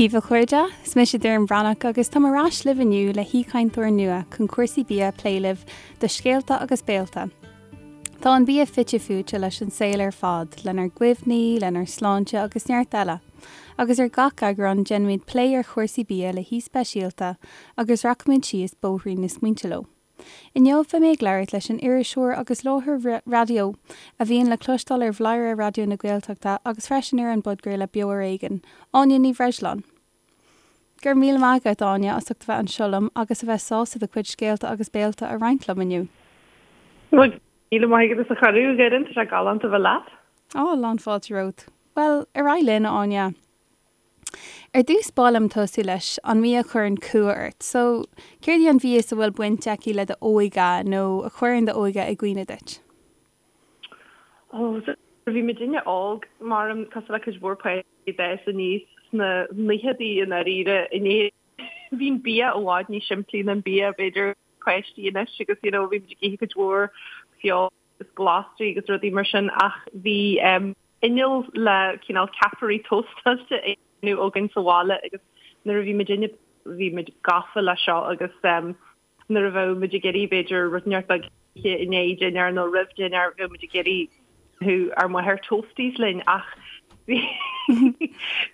Dia daoibh a chairde, is mise Doireann Bhreathnach agus táim ar ais libh inniu le haoichainteoir nua chun cúrsaí bia a phlé libh do Scéalta agus Béalta. Tá an bia fite fuaite leis an saol ar fad, lenár gcuimhní, lenár sláinte agus neart eile. Agus ar gach eagrán déanfaimid plé ar chúrsaí bia le haoi speisialta agus rachaimid síos bóithrín na smaointe leo. Inniu beidh mé ag labhairt leis an iriseoir agus láithreoir raidió a bhíonn le cloisteáil ar Bhladhaire Raidió na Gaeltachta agus freisin ar an bpodchraoladh Beo Ar Éigean, Áine Ní Bhreisleáin. Go raibh míle maith agat, Áine, as ucht a bheith anseo liom agus a bheith sásta do chuid scéalta agus béalta a roinnt liom inniu. Go raibh míle maith agat as an chuireadh, a Dhoireann, tá sé galánta a bheith leat. Á, lán fáilte romhat. Bhuel, ar aghaidh linn, a Áine. Ar dtús ba mhaith liom tosú leis an mbia a chuireann cumha ort. So, céard í an mhias a bhfuil baint aici le do óige nó a chuireann do óige i gcuimhne duit? Oh, so bhí muidinne óg, maram, cosúil le cuid mhór páistí a d'fhás aníos sna naochadaí i ndáiríre in Éirinn. Bhí an bia i bhfad níos simplí ná an bia, b'fhéidir, páistí anois agus you know bhí muid ag ithe cuid mhór feoil agus glasraí agus rudaí mar sin ach bhí inneall le cineál ceapairí tóstáilte á dhéanamh againn sa bhaile agus nuair a bhí muidinne bhí muid gafa le seo agus nuair a bheadh muid ag iarraidh b'fhéidir rud inteacht beag a ithe i ndiaidh dinnéar nó roimh dinnéar bheadh muid ag iarraidh ár máthair toasties linn ach bhí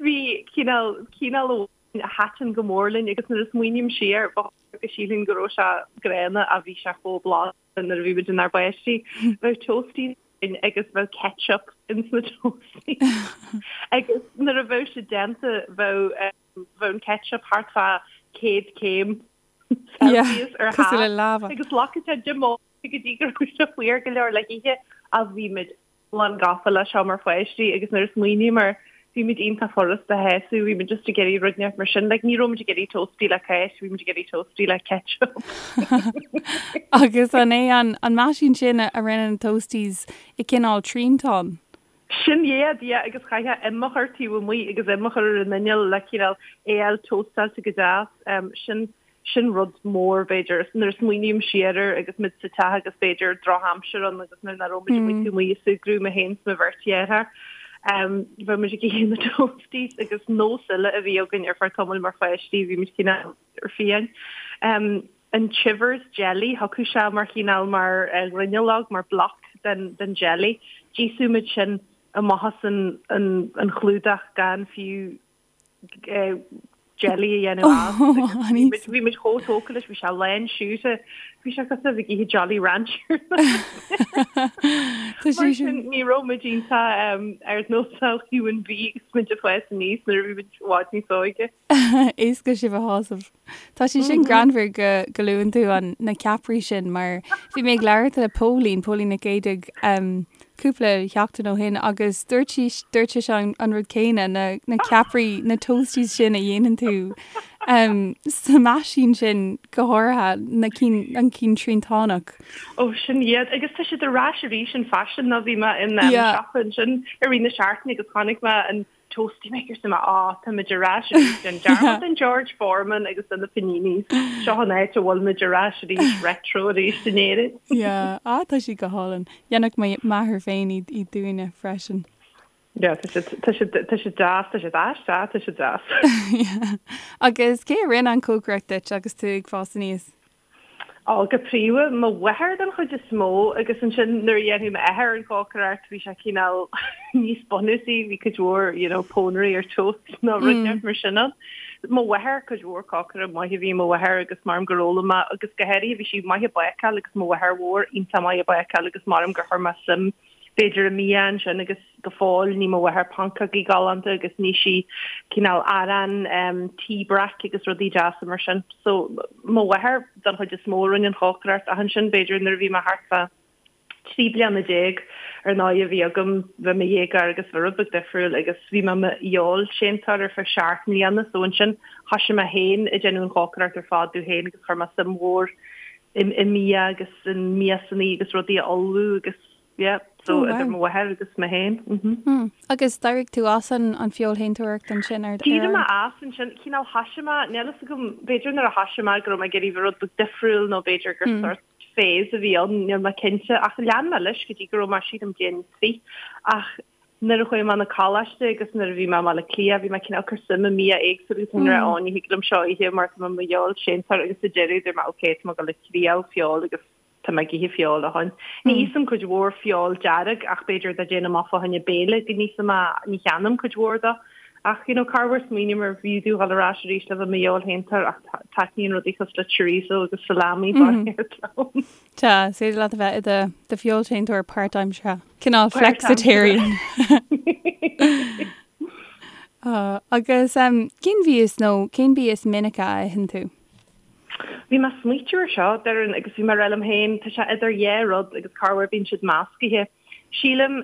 bhí cineál cineál amháin a thaitin go mór linn agus nuair a smaoiním siar ba go sílfinn go raibh sé gránna ach bhí sé chomh blasta. nuair a bhí muid inár bpáistí, bheadh toasties againn agus bheadh ketchup ins na toasties agus nuair a bheadh sé déanta bheadh bheadh an ketchup thart fá 100 céim Celsius ar cosúil le lava. agus ghlacfadh sé 10 mbomaite go dtí go raibh sé fuar go leor le hithe ach bhí muid lán gafa le seo mar pháistí agus nuair a smaoiním air bhí muid iontach furasta a shásamh, bhí muid just ag iarraidh rud inteacht mar sin, like ní raibh muid ag iarraidh toastie le cáis, bhí muid ag iarraidh toastie le ketchup. Agus an é an an meaisín sin a rinne na toasties i cineál triantán? Sin iad, yeah, agus chaithfeá im a chur taobh amuigh agus im a chur ar an inneall le cineál é a fháil tóstáilte go deas, sin Sin rud mór, b'fhéidir, nuair a smaoiním siar air agus muid sa teach agus b'fhéidir drochaimsir ann agus nuair nach raibh muid amuigh taobh amuigh ag súgradh, mé féin is mo bheirt dheartháir, bheadh muid ag ithe na toasties agus nós eile a bhí againn ar feadh tamaill mar pháistí, bhí muid cineál fiáin. An Chivers jelly, thiocfadh sé mar chineál mar ghruinneallóg, mar block den den jelly. D'íosfadh muid sin amach as an an chlúdach gan fiú jelly a dhéanamh as. Bhí muid chomh tógtha leis, bhí sé lán siúcra, bhí sé cosúil le bheith ag ithe Jolly Rancher. Mar sin ní raibh muid iontach ar nós human beings muid ag fás aníos nuair a bhí muid i bhfad níos óige. Éasca sibh a shásamh. Tá sé sin greannmhar go go luann tú an na ceapairí sin mar bhí mé ag labhairt le Póilín, Póilín Nic Géadaigh, cúpla sheachtain ó shin agus dúirt sí dúirt sise an an rud céanna, na na ceapairí, na toasties sin a dhéanann tú sa meaisín sin go háirithe, na cinn an cinn triantánach. Ó sin iad agus tá siad ar ais arís in fashion nó bhí mé in siopa ansin i rith na seachtaine agus chonaic mé an Toastie maker so mé á tá muid ar ais arís déan dearmad den George Foreman agus de na paninis. Seo an áit a bhfuil muid ar ais arís retro arís in Éirinn. Yeah, ah tá siad go hálainn. Dhéanfadh mo mháthair féin iad iad dúinne freisin. Yeah, tá siad tá siad tá siad deas, tá siad aisteach, tá siad deas. Yeah. Agus cé a rinne an chócaireacht duit agus tú ag fás aníos? Ó, go príomha, mo mháthair den chuid is mó agus ansin nuair a dhéanfadh m'athair an chócaireacht bhí sé cineál níos bunúsaí, bhí cuid mhór you know pónairí ar toast nó rud inteacht mar sin ann. Mo mháthair, cuid mhór cócaire maith a bhí i mo mháthair agus maram gur fhoghlaim mé agus go háirithe bhí sí maith ag bácáil agus mo mháthair mhór iontach maith ag bácáil agus maram gur chuir mé suim b'fhéidir i mbia ansin agus go fóill ní mo mháthair pancógaí galánta agus ní sí cineál arán tí breac agus rudaí deasa mar sin. So mo mháthair don chuid is mó a rinne an chócaireacht ach ansin b'fhéidir nuair a bhí mé thart fá 13 bliana ar ndóigh a bhí agam bheith i mo dhéagóir agus bhí rud beag difriúil agus bhí mé i mo fheoilséantóir ar feadh seacht mbliana so ansin thoisigh mé féin ag déanamh an chócaireacht ar fad domh féin agus chuir mé suim mhór i mbia agus i miasanna agus rudaí a ullmhú agus yeah so oh, idir mo mháthair agus mé féin. Mm -hmm. Agus d'éirigh tú as an an feoilshéantóireacht ansin ar D'éirigh mé as ansin cineál thoisigh mé níl fhios agam b'fhéidir nuair a thoisigh mé go raibh mé ag iarraidh rud beag difriúil nó b'fhéidir gur mm. sort phase a bhí ann níl mé cinnte ach lean mé leis go dtí go raibh mé sílim bliain 3 ach. Nuair a chuaigh mé 'na coláiste agus nuair a bhí mé i mBaile Átha Cliath bhí mé cineál cur suim i mbia éagsúil agus mé ag rá ó ní thig liom seo a ithe mar tá mé i mo fheoilséantóir agus sa deireadh dúirt mé ok tá mé ag dul ag triail feoil agus tá mé ag ithe feoil ó shin. Ní íosaim cuid mhór feoil dearg ach b'fhéidir dá déanfainn amach fá choinne béile go n-íosfainn é, ní cheannaím cuid mhór dó. Ach you know corruair smaoiním ar bhfiú domh dhul ar ais arís le bheith i mo fheoilshéantóir ach taitníonn rudaí cosúil le chorizo agus salami barraíocht liom. Tá, is féidir leat a bheith i do do feoilséantóir páirtaimseartha. Cineál flexitarian. Agus cén mhias nó cén bia is minice a itheann tú? Bhí mé ag smaoitiú ar seo, Doireann, agus bhí mé ag rá liom féin, tá sé idir dhá rud agus corruair bíonn siad meascaithe. Sílim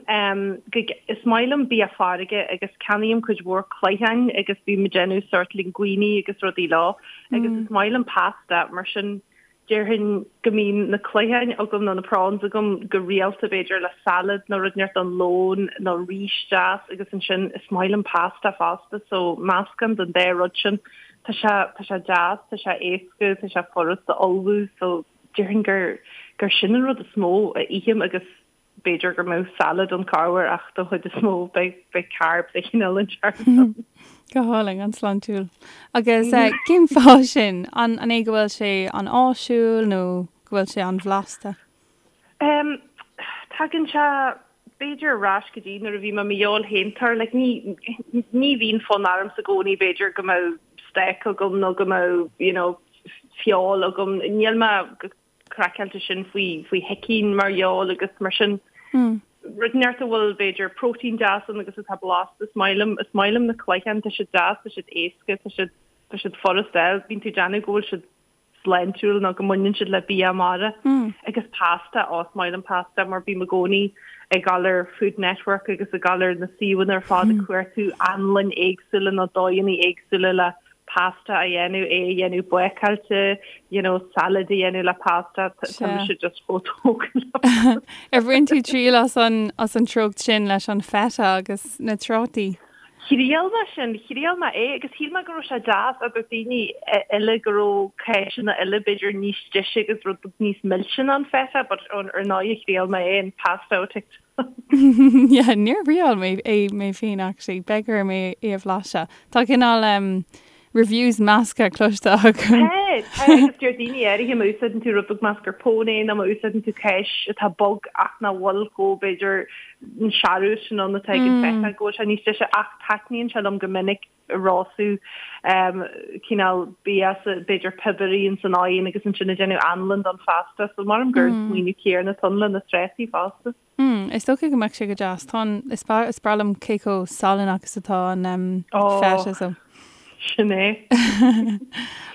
go, is maith liom bia farraige agus ceannaím cuid mhór cloicheáin agus bím ag déanamh sórt linguine agus rudaí leo agus is maith liom pasta, mar sin Déarfainn go mbíonn na cloicheáin agam nó na prawns agam go rialta b'fhéidir le salad nó rud inteacht don lón nó rís deas agus ansin is maith liom pasta fosta so meascán den dá rud sin. Tá sé tá sé deas, tá sé éasca, tá sé furast a ullmhú so déarfainn gur gur sin an rud is mó a ithim agus B'fhéidir go mbeadh salad ann corruair ach don chuid is mó beidh beidh carbs de chineál inteacht ann. Go hálainn, an-sláintiúil. Agus cén fáth sin? An an é go bhfuil sé an-áisiúil nó go bhfuil sé an-bhlasta? Em, tagann sé b'fhéidir ar ais go dtí nuair a bhí mé i mo fheoilshéantóir, like ní ní bhíonn fonn ormsa i gcónaí b'fhéidir go mbeadh steak agam nó go mbeadh you know feoil agam. Níl mé go craiceáilte sin faoi faoi shicín mar fheoil agus mar sin. Rud inteacht a bhfuil b'fhéidir próitéin deas ann agus atá blasta is maith liom is maith liom na cloicheáin tá siad deas tá siad éasca tá siad tá siad furast a fháil bíonn tú ag déanamh go bhfuil siad sláintiúil nó go mbaineann siad le bia mara agus pasta ó is maith liom pasta mar bím i gcónaí ag dul ar Food Network agus ag dul ar na suíomhanna ar fad ag cuartú anlainn éagsúla nó dóigheanna éagsúla le pasta a dhéanamh, é a dhéanamh bácáilte, you know, salad a dhéanamh le pasta, tá mise just chomh tógtha le pasta. Ar bhain tú triail as an, as an treocht sin leis an feta agus na trátaí? Thriail mé sin, thriail mé é agus shíl mé go raibh sé deas agus daoine eile go raibh cáiseanna eile b'fhéidir níos deise agus rud níos milse ná an feta but ar ndóigh thriail mé é an pasta ó TikTok. Yeah, níor thriail mé é mé féin actually, beidh orm é a bhlaiseadh. Tá cineál um, reviews measctha cloiste agam. Tá, tá, agus deir daoine áirithe má úsáideann tú rud beag mascarpone nó má úsáideann tú cáis atá bog ach nach bhfuil chomh b'fhéidir an searbh sin ann atá ag an feta go bhfuil sé níos deise ach taitníonn sé liom go minic rosadh cineál bia b'fhéidir piobarthaí ins an oigheann agus ansin ag déanamh anlann don phasta so maram gur an smaoineamh céanna atá ann le na trátaí fosta. Mm, is dócha go mbeadh sé go deas. Tá an, is breá, is breá liom cé chomh salannach is atá an um, feta so. Sin é.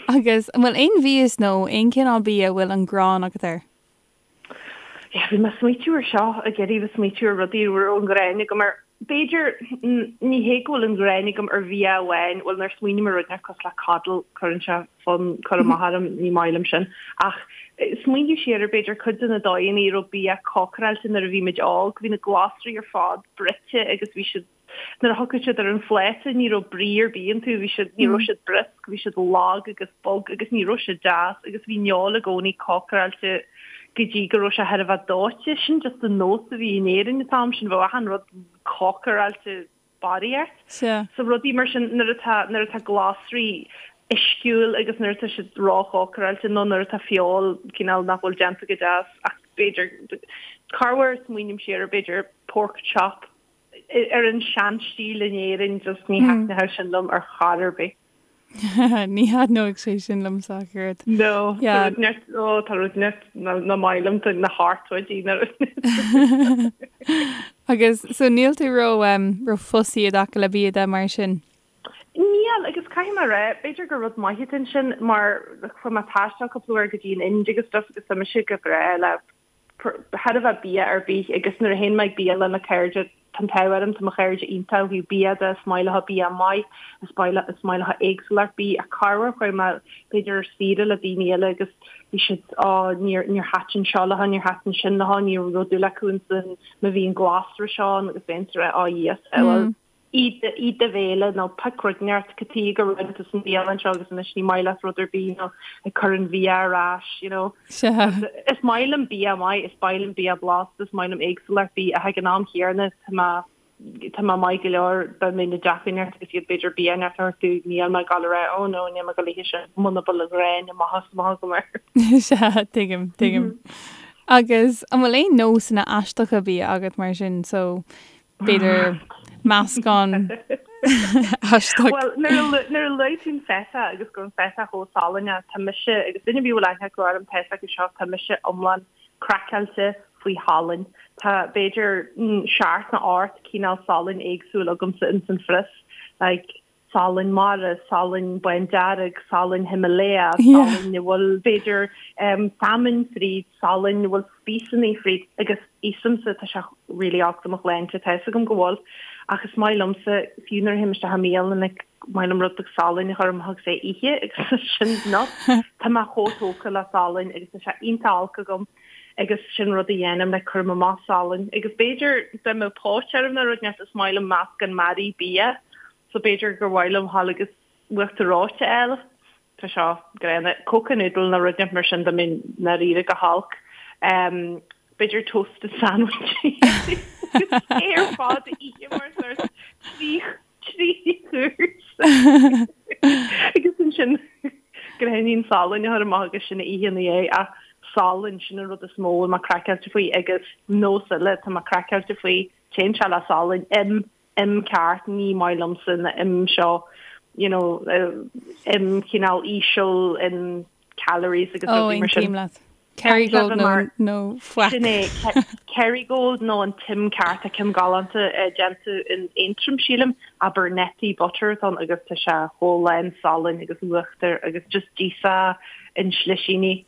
Agus an bhfuil aon mhias nó aon chineál bia a bhfuil an ghráin agat air? Yeah, bhí mé ag smaoitiú ar seo, ag iarraidh bheith smaoitiú ar rudaí a raibh an ghráin agam air. B'fhéidir, ní hé go bhfuil an ghráin agam ar bhia amháin, bhuel nuair a smaoiním ar rud inteacht cosúil le coddle, cuireann sé fonn cur amach orm, ní maith liom sin. Ach smaoineamh siar ar b'fhéidir cuid de na dóigheanna a raibh bia cócaráilte nuair a bhí muid óg, bhí na glasraí ar fad bruite agus bhí siad Nuair a thiocfadh siad ar an phláta ní raibh brí ar bith iontu, bhí siad, ní raibh siad briosc, bhí siad lag agus bog agus ní raibh siad deas agus bhí an fheoil i gcónaí cócaráilte go dtí go raibh sé thar a bheith dóite. Sin just an nós a bhí in Éirinn an t-am sin, bheadh achan rud cócaráilte barraíocht. Sea. So rudaí mar sin nuair atá, nuair atá glasraí uisciúil agus nuair atá siad róchócaráilte nó nuair atá feoil cineál nach bhfuil déanta go deas ach b'fhéidir corruair smaoiním siar ar b'fhéidir pork chop ar an seanstíl in Éirinn just ní thaitneodh sin liom ar chor ar bith. Ní thaitneodh sé sin liomsa ach oiread. No, tá rud neart, ó tá rud neart nach maith liom, tá na hartóidí na rud. Agus so níl tú ró um, ró fussy i dtaca le bia de mar sin? Níl, agus caithfidh mé a rá, b'fhéidir gur rud maith atá ansin mar chuaigh mé ag taisteal cúpla uair go dtí an Ind agus stuff agus tá mise go breá le chóir a bheith bia ar bith agus nuair a théann mé ag bialann le cairde, tá an t-ádh orm, tá mo chairde iontach ó thaobh bia de, is maith leo bia maith, is maith is maith leo éagsúlacht bídh ach corruair chuaigh mé b'fhéidir ar saoire le daoine eile agus bhí siad á níor níor thaitin seo leo, níor thaitin sin leo, ní raibh dúil acu insan má bhí an glasra seo ann agus bheinn ag rá á yes bhuel ith do bhéile nó pioc rud inteacht cad chuige go raibh tú san bhialann seo agus anois ní maith leat rud ar bith nó ag cur an bhia ar ais, you know. Sea. Is maith liom bia maith, is maith liom bia blasta, is maith liom éagsúlacht bídh ach ag an am chéanna tá mé tá mé maith go leor dá mbeinn i dteach inteacht agus iad b'fhéidir bia inteacht a thabhairt domh níl mé ag dul a rá oh no níl mé ag dul a ithe sin muna bhfuil an ghráin amach is amach agam air. Sea, tuigim, tuigim. Agus an bhfuil aon nósanna aisteacha bia agat mar sin so b'fhéidir meascán aisteach? Bhuel, nuair a luaigh tú an feta agus go raibh an feta chomh salainn, tá mise agus duine ar bith a bhfuil aithne acu orm tá a fhios acu seo, tá mise iomlán craiceáilte faoi shalainn. Tá b'fhéidir seacht nó ocht cineál salainn éagsúil agamsa ins an phrios, like salainn mara, salainn bándearg, salainn Himalaya, salainn a bhfuil b'fhéidir salmon fríd, salainn a bhfuil spíosanaí fríd agus íosaimse, tá sé really olc do mo shláinte, tá fhios agam go bhfuil, ach is maith liomsa, fiú nuair a théim isteach i mbialann, like maith liom rud beag salainn a chur amach agus é a ithe agus sin not tá mé chomh tógtha le salainn agus tá sé iontach olc agam agus sin rud a dhéanaim like cuirim amach salainn agus b'fhéidir dá mbeadh póit orm nó rud inteacht is maith liom meascán mearaí bia so b'fhéidir gur mhaith liom dhul agus uachtar reoite a fháil tá seo gránna Coca noodle nó rud inteacht mar sin dá mbeinn ndáiríre go holc um, b'fhéidir toasted sandwich é ar fad a ithe mar sort 3 chúrsa agus ansin gráinnín salainn a chur amach agus sin a ithe ina dhiaidh ach salann sin an rud is mó a bhfuil mé craiceáilte faoi agus nós eile tá mé craiceáilte faoi téann sé le salann im im ceart ní maith liomsa na im seo you know im cineál íseal in calories agus rudaí mar sin. Ó, aontaím leat. Kerrygold nó nó faic. Sin é, Kerrygold nó an t-im ceart, tá ceann galánta déanta in Aontroim sílim, Abernethy butter atá ann agus tá sé chomh lán salainn agus uachtar agus just d'íosfá in slisíní.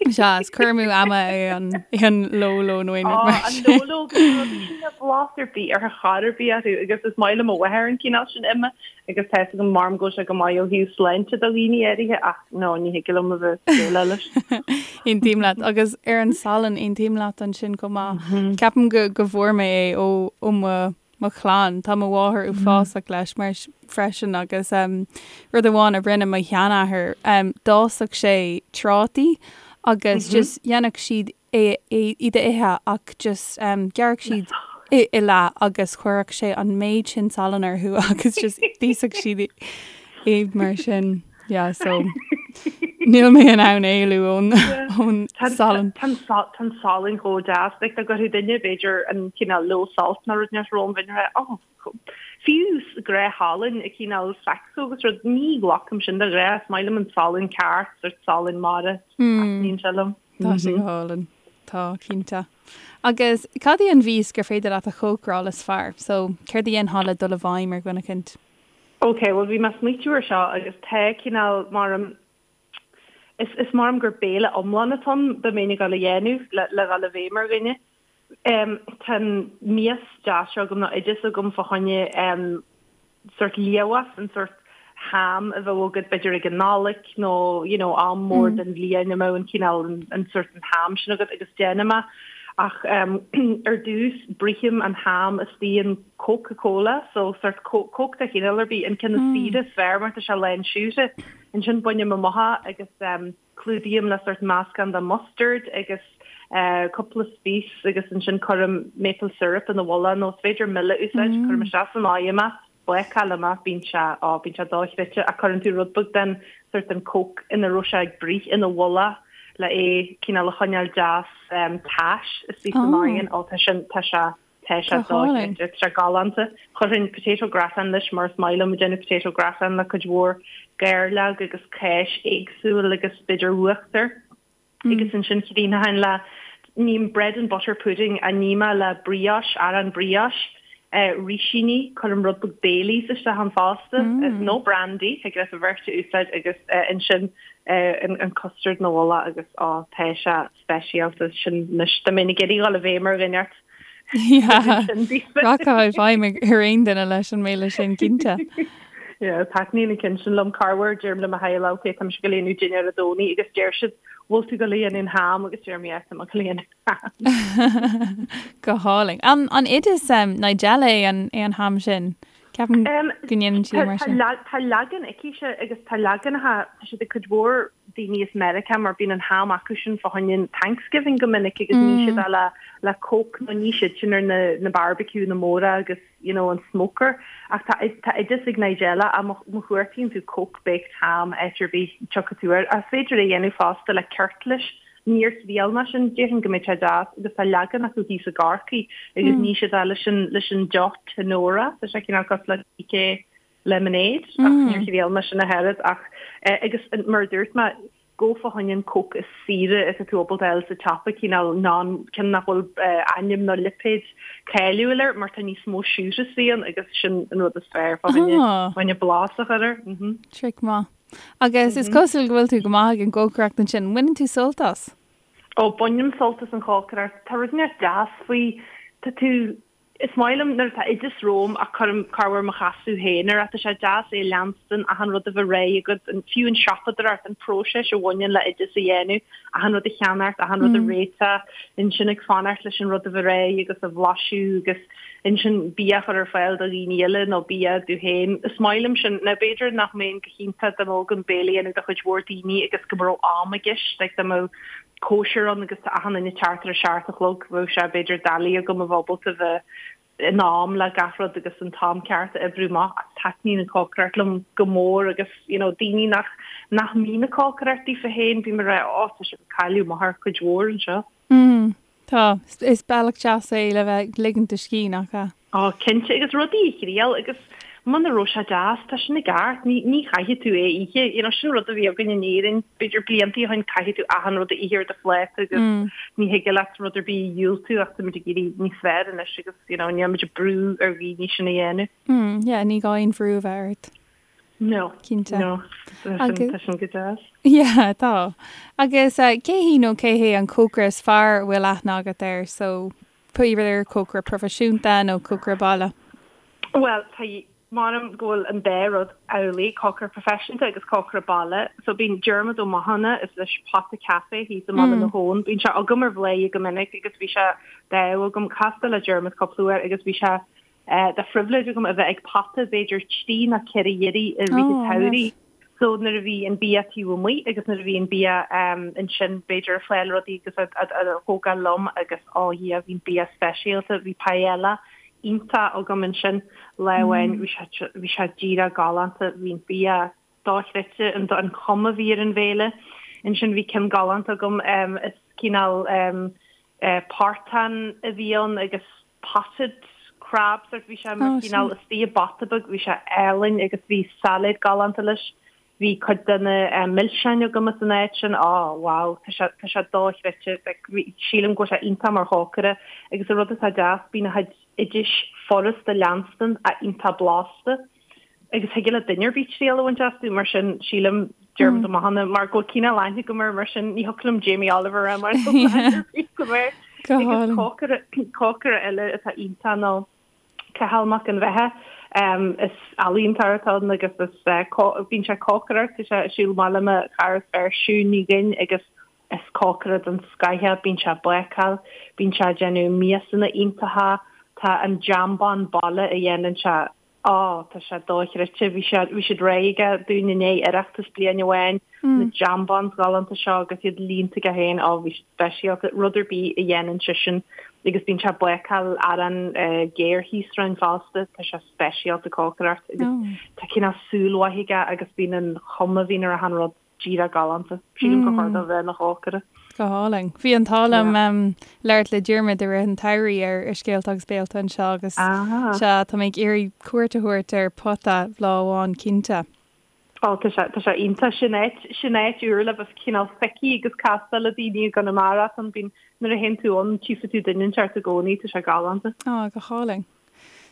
Sea, is cur amú ama é an é an Lolo nó aon rud mar sin. An Lolo agus rudaí sin níl blas ar bith ar chor ar bith orthu agus is maith le mo mháthair an cineál sin ime Agus tá fhios agam maram go bhfuil sé go maith ó thaobh sláinte do dhaoine áirithe ach no, ní thig liom a bheith déileáil leis. Aontaím leat. Agus ar an salann, aontaím leat ansin chomh maith. Ceapaim go go bhfuair mé é ó ó mo mo chlann. Tá mo mháthair uafásach leis mar freisin agus rud amháin a rinne mo sheanathair, d'fhásfadh sé trátaí agus just dhéanfadh siad é iad a ithe ach just ghearrfadh siad i leath agus chuirfeadh sé an méid sin salainn orthu agus just d'íosfadh siad iad mar sin. Yeah, so níl mé in ann éalú ón ón salann. Tá an salann chomh deas, like dá gcuirfeadh duine b'fhéidir an cineál low salt nó rud inteacht romham bheinn ag rá oh fiú gnáthshalann i cineál Saxo agus rud ní ghlacaim sin de ghnáth, is maith liom an salann ceart, sort salann mara, taitníonn sé liom. Tá sé go hálainn. Tá, cinnte. Agus cad í an mhias gur féidir leat a chócaráil is fearr? So, céard a dhéanfá le dul i bhfeidhm ar dhuine eicint? Ok, bhuel bhí mé ag smaoitiú ar seo agus tá cineál maram, is, is maram gur béile iomlán atá ann dá mbeinn ag dul a dhéanamh le, le dhul i bhfeidhm ar dhuine. Tá an mias deas seo agam nó oideas agam fá choinne sort liamhás, an sort ham a bheadh agat b'fhéidir ag an Nollaig nó you know am mór den bhliain a mbeadh an cineál an sort an ham sin agat agus déanaim é ach ar dtús bruithim an ham istigh in Coca Cola so sort Coke de chineál ar bith an ceann is saoire is fearr mar tá sé lán siúcra. Ansin bainim amach é agus Clúdaím le sort meascán de mustard agus cúpla spice agus ansin cuirim maple syrup ina mhullach nó is féidir mil a úsáid, cuirim isteach san oigheann é, bácálaim é, bíonn sé, á, bíonn sé dochreidte ach cuireann tú rud beag den sort den coke ina raibh sé ag bruith ina mhullach le é cineál a choinneáil deas tais istigh san oigheann, á tá sin, tá sé Tá sé dochreidte, tá sé galánta. Chuirfinn potato gratin leis mar is maith liom ag déanamh potato gratin le cuid mhór gairleog agus cáis éagsúil agus b'fhéidir uachtar. Agus ansin chríochnóinn le, ním bread and butter pudding a ním é le brioche, arán brioche, rísíní, cuirim rud beag Baileys isteach ann fosta, nó brandy, thig leat an bheirt a úsáid agus ansin an custard ina mhullach agus á tá sé speisialta sin anois. Dá mbeinn ag iarraidh dhul i bhfeidhm ar dhuine ort. Rachfá i bhfeidhm ar aon duine leis an mbéile sin, cinnte. Yeah, taitníonn an ceann sin liom. Corruair, deirim le mo theaghlach, ok, tá mise ag dul a dhéanamh dinnéar Dé Domhnaigh agus deir siad, bhfuil tú ag dul a dhéanamh ham agus deirim, yeah, tá mé ag dul a dhéanamh ham. Go hálainn. An oideas Nigella é an é an ham sin? Ceapaim go ndéanann sí mar sin. Tá leagan aici agus tá leaganacha, tá siad ag cuid mhór. daoine as Meiriceá mar bíonn an ham acu sin fá choinne an Thanksgiving go minic agus ní siad le le Coke nó ní siad sin ar na na barbecue na móra agus you know an smoker ach tá tá oideas ag Nigella ach má má chuartaíonn tú Coke baked ham áit ar bith tiocfaidh tú air. Ach is féidir é a dhéanamh fosta le ceirtlis. Níor thriail mé sin, déarfainn go mbeidh sé deas agus tá leagan acu thíos i gCorcaigh agus ní siad é leis an leis an deoch Tanora, tá sé cineál cosúil le DK lemonade ach níor thriail mé sin ach oiread ach agus mar a dúirt mé gabh fá choinne an Coke is saoire is atá tú ábalta a fháil sa tsiopa cineál non ceann nach bhfuil ainm nó lipéad cáiliúil air mar tá níos mó siúcra istigh ann agus sin an rud is fearr fá choinne fá choinne blas a chur air. Trick maith. Agus is cosúil go bhfuil tú go maith ag an gcócaireacht ansin. Baineann tú sult as? Ó, bainim sult as an chócaireacht. Tá rud inteacht deas faoi. Tá tú Is maith liom nuair atá oideas romham ach cuirim corruair mo chasadh féin air. Tá sé deas é a leanstan, achan rud a bheith réidh agat, an, fiú an siopadóireacht, an próiseas a bhaineann le oideas a dhéanamh, achan rud a cheannacht, achan rud a réiteach, ansin ag fanacht leis an rud a bheith réidh agus a bhlaiseadh agus ansin bia a chur ar fáil do dhaoine eile nó bia dom féin. Is maith liom sin. Now b'fhéidir nach mbeinn go hiontach dá mbeadh agam béile a dhéanamh do chuid mhór daoine agus go mbeadh am i gceist, like dá mbeadh cóisir ann agus tá achan duine ag teacht ar a seacht a chlog, bheadh sé b'fhéidir doiligh agam a bheith ábalta bheith in am le gach rud agus an t-am ceart a oibriú amach ach taitníonn an cócaireacht liom go mór agus you know daoine nach nach mbíonn ag cócaireacht daofa féin bím ag rá ó tá sibh ag cailleadh amach ar cuid mhór anseo. Mm. Tá. Is bealach deas é le bheith ag ligint do scíth, nach ea? Ó, cinnte, agus rudaí a thriail agus muna raibh sé deas, tá sin i gceart, ní, ní chaithfidh tú é a ithe, you know, sin rud a bhí againn in Éirinn, b'fhéidir bliantaí ó shin, caithfidh tú achan rud a ithe ar do phláta agus ní thig leat rud ar bith a dhiúltú ach táimid ag éirí níos fearr anois agus, you know, níl muid ag brú ar dhaoine sin a dhéanamh. Mm, yeah, ní gá aon bhrú a bheith ort. No. Cinnte. No. Tá sin go deas. Yeah, tá. Agus cé hí nó cé hé an cócaire is fearr a bhfuil aithne agat air? So, pé ar cócaire proifisiúnta nó cócaire baile? Bhuel, tá, m'anam go bhfuil an dá rud amhlaidh, cócaire proifisiúnta agus cócaire baile. So bíonn Diarmuid Ó Mathúna, is leis Pota Café thíos i mBaile na hAbhann. Bíonn sé agam ar Bhladhaire go minic agus bhí sé d'ádh agam castáil le Diarmuid cúpla uair agus bhí sé de phribhléid agam a bheith ag Pota b'fhéidir trí nó ceithre iarraidh i rith an tsamhraidh. So nuair a bhí an bia taobh amuigh agus nuair a bhí an bia ansin b'fhéidir ag fáil rudaí agus á thógáil liom agus ó Dhia bhí an bia speisialta, bhí paella iontach agam ansin lá amháin, bhí sé bhí sé díreach galánta, bhí an bia dochreidte, an an chuma a bhí ar an bhéile. Ansin bhí ceann galánta agam is cineál portán a bhí ann agus potted crab sort bhí sé mar chineál istigh i bpota beag bhí sé álainn agus bhí sailéad galánta leis bhí cuid de na milseáin agam as an áit sin oh wow tá sé tá sé dochreidte like bhí sílim go bhfuil sé iontach mar chócaire agus an rud atá deas bíonn a chuid oidis furasta leanstan ach iontach blasta agus thig le duine ar bith triail a bhaint astu, mar sin sílim Diarmuid Ó Mathúna mar go bhfuil cineál aithne agam air, mar sin ní thiocfadh liom Jamie Oliver a rá mar go air. Agus cócaire cócaire eile atá iontach ná Cathal Mac an Bheatha. Is ealaíontóir atá ann agus is bíonn sé ag cócaireacht, tá sé ag siúl amach le mo chara is fearr Siún Ní Dhuinn agus is cócaire den scoth é, bíonn sé ag bácáil, bíonn sé ag déanamh miasanna iontacha, tá an jambán baile a dhéanann sé Á, tá sé dochreidte. Bhí sé, bhí siad réidh aige dúinn i ndiaidh Oireachtas bliain amháin, na jambons galánta seo agus iad líonta aige féin, á, bhí siad speisialta. Rud ar bith a dhéanann seisean agus bíonn sé ag bácáil arán géar thíos romhainn fosta, tá sé speisialta cócaireacht agus tá cineál súil mhaith aige agus bíonn an chuma a bhíonn ar achan rud. díreach galánta. Sílim gur chóir dó bheith ina chócaire. Go hálainn. Bhí an t-ádh liom labhairt le Diarmuid i rith an tsamhraidh ar Scéalta agus Béalta anseo agus sea, tá mé ag iarraidh cuairt a thabhairt ar Pota lá amháin cinnte. Ó, tá sé, tá sé iontach. Sin áit, sin áit úr le bheith cineál feicthe agus castáil le daoine i gConamara. Tá, bíonn, nuair a théann tú ann, tchífidh tú duine inteacht i gcónaí, tá sé galánta. Á, go hálainn.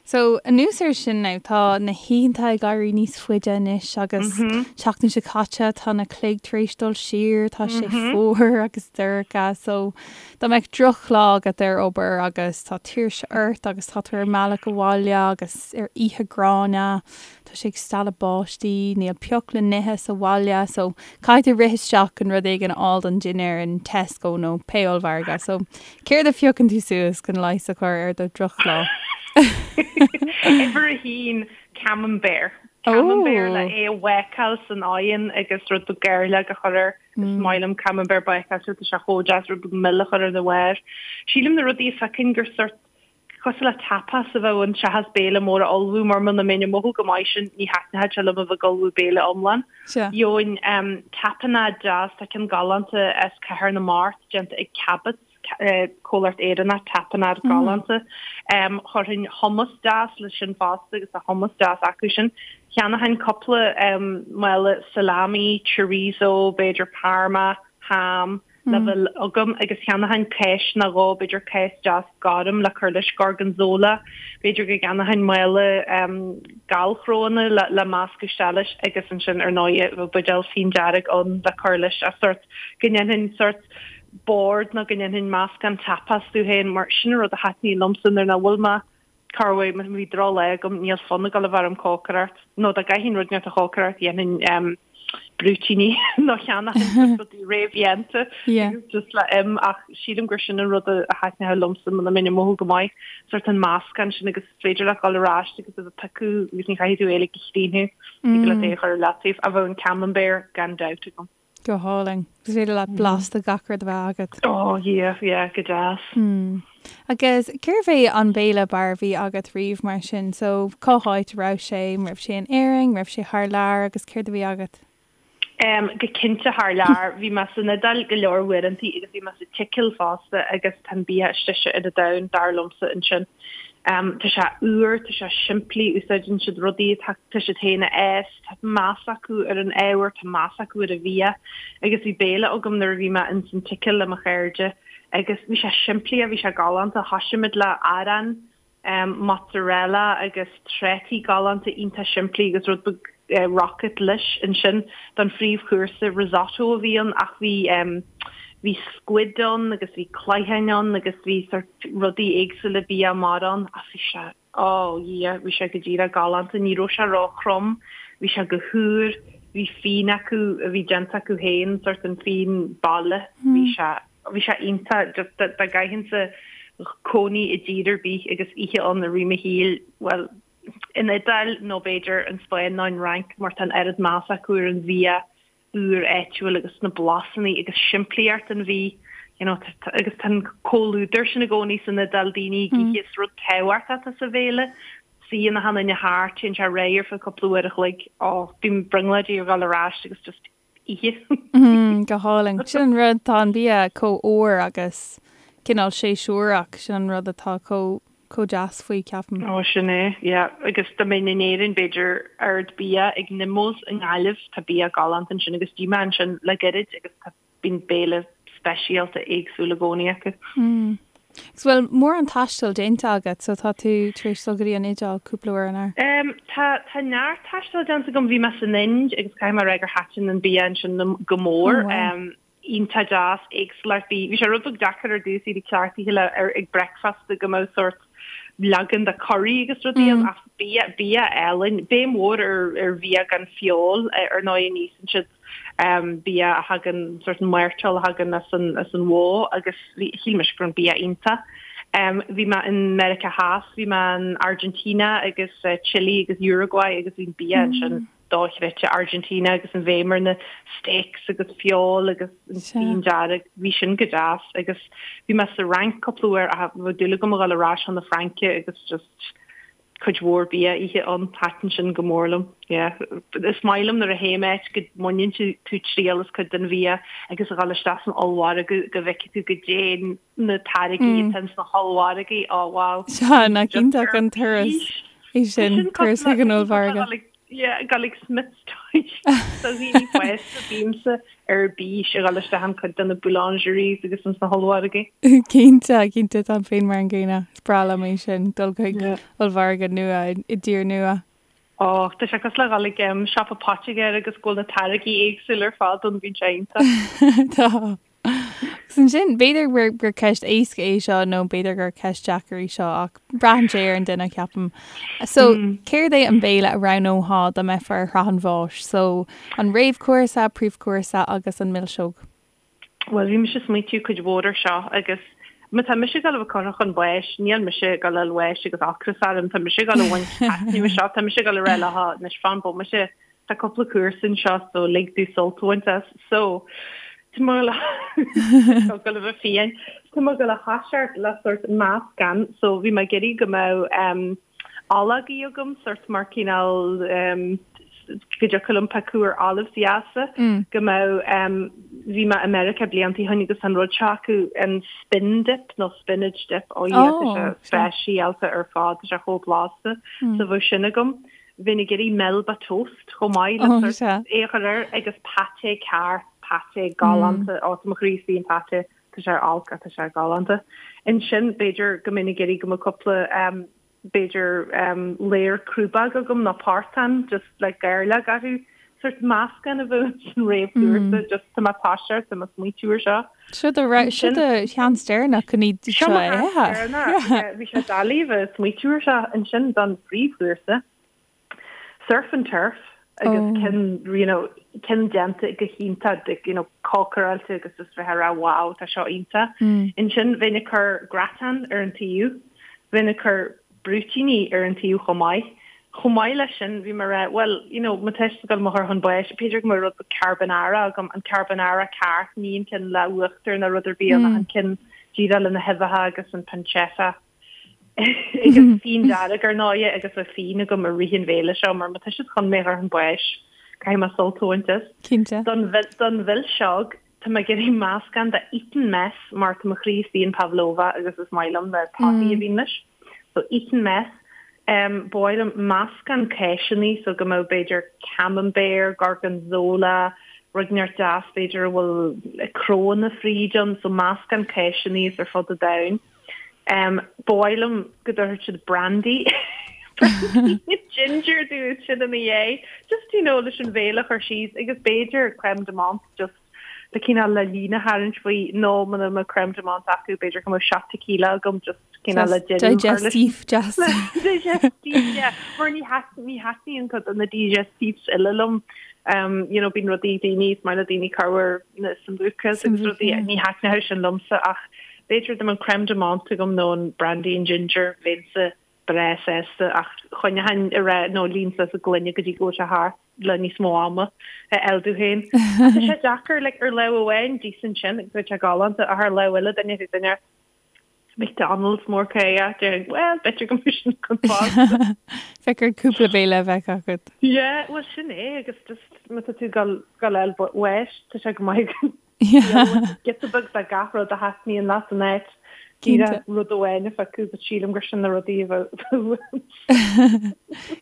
So, anuas air sin now, tá na hoícheanta ag éirí níos faide anois agus seachtain seo caite tá na cloig tar éis dul siar, tá sé fuar agus dorcha, so dá mbeadh drochlá agat ar obair agus tá tuirse ort agus tá tú ar an mbealach abhaile agus ar oíche gránna, tá sé ag stealladh báistí, níl pioc le n-ithe sa bhaile, so caithfidh tú rith isteach chun rud éigin a fháil don dinnéar in Tesco nó pé ollmhargadh, so Céard a phiocann tú suas chun leigheas a chur ar do dhrochlá? Uimhir a haon, Camembert. Camembert le é a bhácáil san oigheann agus rud beag gairleog a chur air. Is maith liom camembert bácáilte, tá sé chomh deas rud beag mil a chur ar a bharr. Sílim na rudaí a phiocfainn gur sort cosúil le tapas a bheadh ann seachas béile mór a ullmhú mar muna mbeinn ag mothú go maith sin ní thaitneodh sé liom a bheith ag ullmhú béile iomlán. Gheobhainn tapenade deas, tá ceann galánta as Cathair na Mart déanta ag Cabot's, comhlacht Éireannach, tapenade galánta. Chuirfinn hummus deas leis sin fosta agus tá hummus deas acu sin. Cheannóchainn cúpla mála salami, chorizo, b'fhéidir parma, ham, le bheith agam agus cheannóchainn cáis nó dhó, b'fhéidir cáis deas gorm le cur leis, gorgonzola, b'fhéidir go gceannóchainn mála gallchrónna le meascadh isteach leis agus ansin ar ndóigh bheadh buidéal fíon dearg ann le cur leis ach sórt go ndéanfainn sórt bord nó go ndéanfainn meascán tapas domh féin mar sin an rud a thaitníonn liomsa nuair nach bhfuil mé Corruair má bhí drochlá agam, níl fonn ag dul a bheith orm cócaireacht, nó dá gcaithfinn rud inteacht a chócaireacht, dhéanfainn brúitíní nó cheannóchainn rudaí réamhdhéanta agus just le im ach sílim gur sin an rud a thaitneodh liomsa muna mbeinn ag mothú go maith, sórt an meascán sin agus is féidir leat dul ar ais agus a bheith ag piocadh agus ní chaithfidh tú é uilig a chríochnú, thig leat é a chur ar leataobh ach bheadh an camembert gan dabht agam. Go hálainn. Is féidir leat blas de gach rud a bheith agat. Oh yeah, yeah, go deas. Mm. Agus cérbh é an béile b'fhearr a bhí agat riamh mar sin? So, cá háit a raibh sé? An raibh sé in Éirinn? An raibh sé thar lear? Agus céard a bhí agat? Um, go cinnte thar lear. Bhí mé san Iodáil go leor uaireantaí agus bhí mé sa tSicil fosta agus tá an bia is deise ar an domhan, dar liomsa, ansin. Um, tá sé úr, tá sé simplí, úsáideann siad rudaí atá tá siad féin a fhás, Tá meas acu ar an ábhar, tá meas acu ar an bhia agus bhí béile agam nuair a bhí mé ins an tSicil le mo chairde agus bhí sé simplí ach bhí sé galánta. Thoisigh muid le arán, mozzarella agus trátaí galánta iontach simplí agus rud beag rocket leis ansin. Don phríomhchúrsa risotto a bhí ann ach bhí bhí squid ann agus bhí cloicheáin ann agus bhí sort rudaí éagsúla bia mara ann ach bhí sé Ó, yeah, bhí sé go díreach galánta, ní raibh sé ró-throm, bhí sé go húr, bhí fíon acu a bhí déanta acu féin, sort an fíon baile, bhí sé, bhí sé iontach, just dá gcaithfinnse cónaí i dtír ar bith agus ithe ann i rith mo shaoil, bhuel, an Iodáil nó b'fhéidir an Spáinn nó an Fhrainc mar tá an oiread meas acu ar an bhia úr áitiúil agus na blasanna agus simplíocht an bhídh you know agus tá an comhluadar sin i gcónaí san Iodáil daoine ag ithe is rud tábhachtach atá sa bhéile suíonn achan duine thart téann sé ar aghaidh ar feadh cúpla uair a chloig ó bím brionglóidí ar dhul ar ais agus just ithe. Go hálainn. Sin an rud tá an bia chomh úr agus cineál séasúrach sin an rud atá chomh chomh deas faoi, ceapaim. Ó, sin é, yeah. Agus dá mbeinn in Éirinn, b'fhéidir Ard Bia ag Nimmo's i nGaillimh, tá bia galánta ansin agus d'ith mé ansin le gairid agus tá, bíonn béile speisialta éagsúil i gcónaí acu. Mm. Agus bhfuil mórán taistil déanta agat, so tá tú tar éis dul go dtí an Iodáil cúpla uair, an ea? Um, tá, tá neart taistil déanta agam, bhí mé san Ind agus caithfidh mé a rá gur thaitin an bia ansin liom go mór. Oh, wow. Um, iontach deas, éagsúlacht bídh. Bhí sé rud beag deacair ar dtús iad ag cleachtadh le ar ag breakfast go mbeadh sórt leagan de curry agus rudaí ann ach bia bia álainn. Béim mhór ar ar bhia gan feoil ar ndóigh ní íosann siad bia a thagann sórt an mairteoil a thagann as an as an bhó agus bhí shíl mise go raibh an bia iontach. Bhí mé in Meiriceá Theas, bhí mé in Argentina agus Chile agus Uruguay agus bhí an bia ansin dochreidte Argentina agus an bhéim ar na steaks agus feoil agus an fíon dearg, bhí sin go deas agus bhí mé sa Fhrainc cúpla uair ach bheadh dúil agam a dhul ar ais chun na Fraince agus just cuid mhór bia a ithe ann, thaitin sin go mór liom. Yeah. Is maith liom nuair a théim áit go mbaineann tú triail as cuid den bhia agus a dhul isteach san ollmhargadh go bhfeicfidh tú goidé na táirgí atá ins na hollmhargaí, oh wow. Sea, nach iontach an turas é sin, turas chuig an ollmhargadh. Yeah, dul ag Smiths Toys. Do dhaoine fásta, bímse ar bís a dhul isteach in cuid de na boulangeries agus ins na hollmhargaí. Cinnte, cinnte, táim féin mar an gcéanna. Is breá liom é sin, dul chuig ollmhargadh nua i dtír nua. Ó, tá sé cosúil le dhul ag siopa poitigéir agus go bhfuil na táirgí éagsúla ar fad ann, bíonn sé iontach. Tá. Agus ansin, b'fhéidir gur, gur ceist éasca é seo nó b'fhéidir gur ceist deacair í seo ach braitheann sé ar an duine, ceapaim. So, céard é an béile a roghnófá dá mbeifeá ar shraith an bháis? So, an réamhchúrsa, príomhchúrsa agus an milseog? Bhuel, bhí mise ag smaoitiú cuid mhór ar seo agus. Má tá mise ag dul a bheith curtha chun báis, níl mise ag dul a fháil bháis agus ocras orm, tá mise ag dul a bhaint taitneamh as seo, tá mise ag dul a rá leo, anois fan bomaite, tá cúpla cúrsa anseo so lig domh sult a bhaint as. So, tá mé ag dul a bheith fiáin. Tá mé ag dul a thoiseacht le sórt meascán, so bhí mé ag iarraidh go mbeadh em, ológaí agam, sórt mar cineál em, go dtiocfadh liom piocadh ar olives deasa, go mbeadh em, bhí mé i Meiriceá blianta ó shin agus an rud seo acu, an spin dip nó spinach dip, ó yeah, tá sé speisialta ar fad, tá sé chomh blasta, so bheadh sin agam. Bheinn ag iarraidh Melba toast chomh maith le sórt é a chur air agus pâté ceart, pâté galánta, ó tá mo chroí istigh in pâté, tá sé ar olc ach tá sé galánta. Ansin b'fhéidir go mbeinn ag iarraidh go mbeadh cúpla b'fhéidir ladhar crúbóg agam nó portán just le gairleog orthu, sórt meascán a bheadh san réamhchúrsa just tá mé ag toiseacht, tá mé ag smaoitiú ar seo. Seo do seo do sheans deireanach chun iad seo a ithe. Seo mo sheans deireanach, bhí sé doiligh bheith ag smaoitiú ar seo ansin don phríomhchúrsa. Surf and turf agus ceann you know ceann déanta go hiontach you know cócaráilte agus just bheith ag rá wow tá seo iontach. Ansin bheinn ag cur gratin ar an taobh, bheinn ag cur brúitíní ar an taobh chomh maith. Chomh maith leis sin bhí mé ag rá bhuel you know má tá siad ag dul mo chur chun báis b'fhéidir go mbeadh rud beag carbonara agam, an carbonara ceart, ní an ceann le uachtar ná rud ar bith ann ach an ceann díreach le na huibheacha agus an pancetta. Agus fíon dearg ar ndóighe agus bheadh fíon agam i rith an bhéile seo mar má tá siad chun mé a chur chun báis, caithfidh mé sult a bhaint as. Cinnte. Don don mhilseog, tá mé ag iarraidh meascán de Eton Mess mar tá mo chroí istigh in pavlova agus is maith liom na torthaí a bhíonn leis. So Eton Mess. Um, ba mhaith liom meascán cáiseanna so go mbeadh b'fhéidir camembert, gorgonzola, rud inteacht deas b'fhéidir a bhfuil crónna fríd ann, so meascán cáiseanna as ar fud an domhain. Ba mhaith liom go dtabharfadh siad brandy brandy ginger domh ansin ina dhiaidh. Just you know leis an bhéile a chur síos agus b'fhéidir crème de menthe just le cineál le líne a tharraingt faoi nó muna mbeadh crème de menthe acu b'fhéidir go mbeadh shot tequila agam just cineál le deireadh a chur leis. Digestif deas. Digestif yeah. Mar ní ní thaitníonn cuid de na digestifs uile liom. Um, you know, bíonn rudaí daoine, is maith le daoine corruair na sambucas agus rudaí ní thaitneodh sin liomsa ach B'fhéidir dá mbeadh an crème de menthe agam nó an brandy and ginger, bheinnse breá sásta ach choinneochainn ag rá nó líon suas an gloine go dtí go bhfuil sé thart le níos mó ama a fháil domh féin. Ach tá sé deacair, like, ar lámh amháin d'íosfainn sin agus bheadh sé galánta ach ar lámh eile duine ar duine McDonald's mór caoch, déarfainn, well, b'fhéidir go mbeadh sin chun fásta. Bheadh ort cúpla béile a bheith agat. Yeah, well sin é agus just má tá tú ag dul a fháil bháis, tá sé go maith Giota beag de gach rud a thaitníonn leat in áit díreach rud amháin a phiocadh, but sílim gur sin na rudaí a bheadh uaim.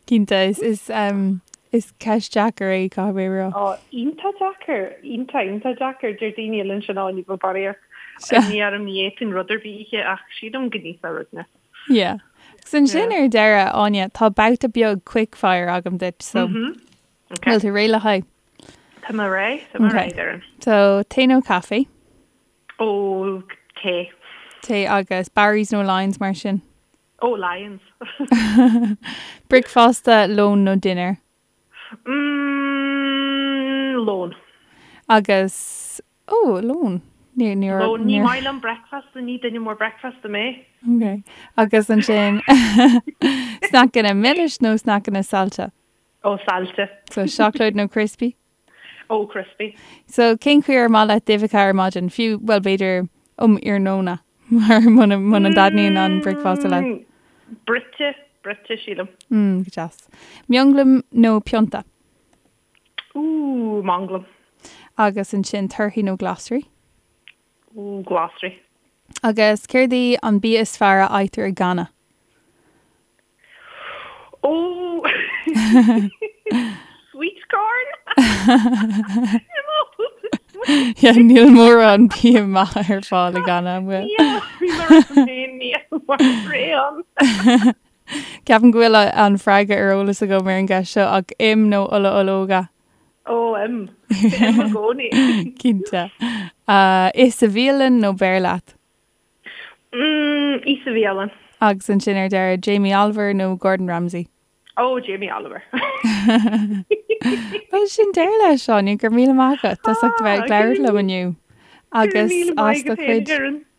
Cinnte, is, is, um, is ceist deacair é, caithfidh mé a rá. Ó, iontach deacair, iontach, iontach deacair. Deir daoine eile ansin, ó, ní bheadh barraíocht imní orm, ní fhéadfainn rud ar bith a ithe, ach sílim go n-íosfá rud inteacht. Yeah. Agus ansin ar deireadh, Áine, tá babhta beag quickfire agam duit, so Okay. bhfuil tú réidh le haghaidh? Tá mé réidh, tá mé réidh, Doireann. So, tae nó caife? Ó, tae. Tae agus Barry's nó Lyons mar sin? Ó, Lyons. Bricfeasta, lón nó dinnéar? Mm, lón. Agus, ó, lón. Ní, ní, Lón, ní maith liom bricfeasta, ní duine mór bricfeasta mé. Ok. Agus ansin, sneaiceanna milis nó sneaiceanna saillte? Ó, saillte. So, seacláid nó crispy? Ó, crispy. So, cén chaoi ar maith leat d'uibheacha ar maidin? Fiú, bhuel, b'fhéidir um iarnóna, mar muna, muna dtaitníonn an bricfeasta leat. Mm, bruite, bruite, sílim. Mm, go deas. Mionghlam nó pionta? Ooh, manglam. Agus ansin torthaí nó glasraí? Ooh, glasraí. Agus céard í an bia is fearr a fhaightear i Ghana? Ó! Sweet corn? Yeah, níl mórán bia maith ar fáil i Ghana, an bhfuil? Níl, bhí mé ar an féin, níl mar réan. Ceapaim go bhfuil an freagra ar eolas agam ar an gceist seo ach im nó ola ológa? Ó, im. Im i gcónaí. Cinnte. Ith sa bhialann nó beir leat? Mm, ith sa bhialann. Agus ansin ar deireadh, Jamie Oliver nó Gordon Ramsay? Ó, Jamie Oliver. Bhuel, sin deireadh leis, Áine, go raibh míle maith agat as ucht a bheith ag labhairt liom inniu. Agus as do chuid.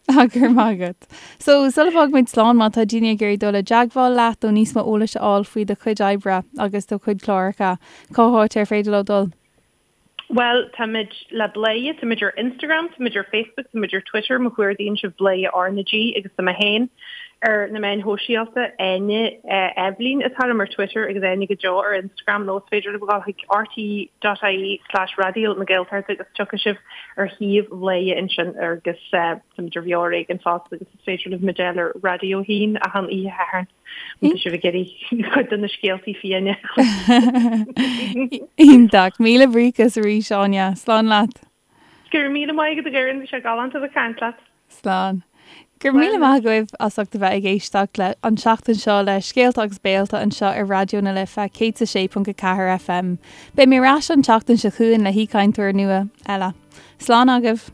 Go raibh maith agat. So, sula bhfágfaimid slán, má tá daoine ag iarraidh dul i dteagmháil leat nó níos mó eolais a fháil faoi do chuid oibre agus do chuid cláracha, cá háit ar féidir leo dul? Bhuel, táimid le Bladhaire, táimid ar Instagram, táimid ar Facebook, táimid ar Twitter, má chuardaíonn sibh Bladhaire R na G agus tá mé féin ar na meáin shóisialta, Áine Eibhlín atá orm ar Twitter agus Áine go deo ar Instagram nó is féidir libh a dhul chuig rte.ie slash Raidió na Gaeltachta agus tiocfaidh sibh ar shuíomh Bhladhaire ansin agus táimid ar Bheo Ar Éigean fosta agus is féidir libh muid a fháil ar Raidió 1 achan oíche Shathairn. Má tá sibh ag iarraidh cuid de na scéaltaí fiáine. Iontach. Míle buíochas arís, Áine. Slán leat. Go raibh míle maith agat a Dhoireann, bhí sé galánta a bheith ag caint leat. Slán. Go raibh míle maith agaibh as ucht a bheith ag éisteacht le an tseachtain seo le Scéalta agus Béalta anseo ar Raidió na Life 106.4 FM. Beidh mé ar ais an tseachtain seo chugainn le haoichainteoir nua eile. Slán agaibh.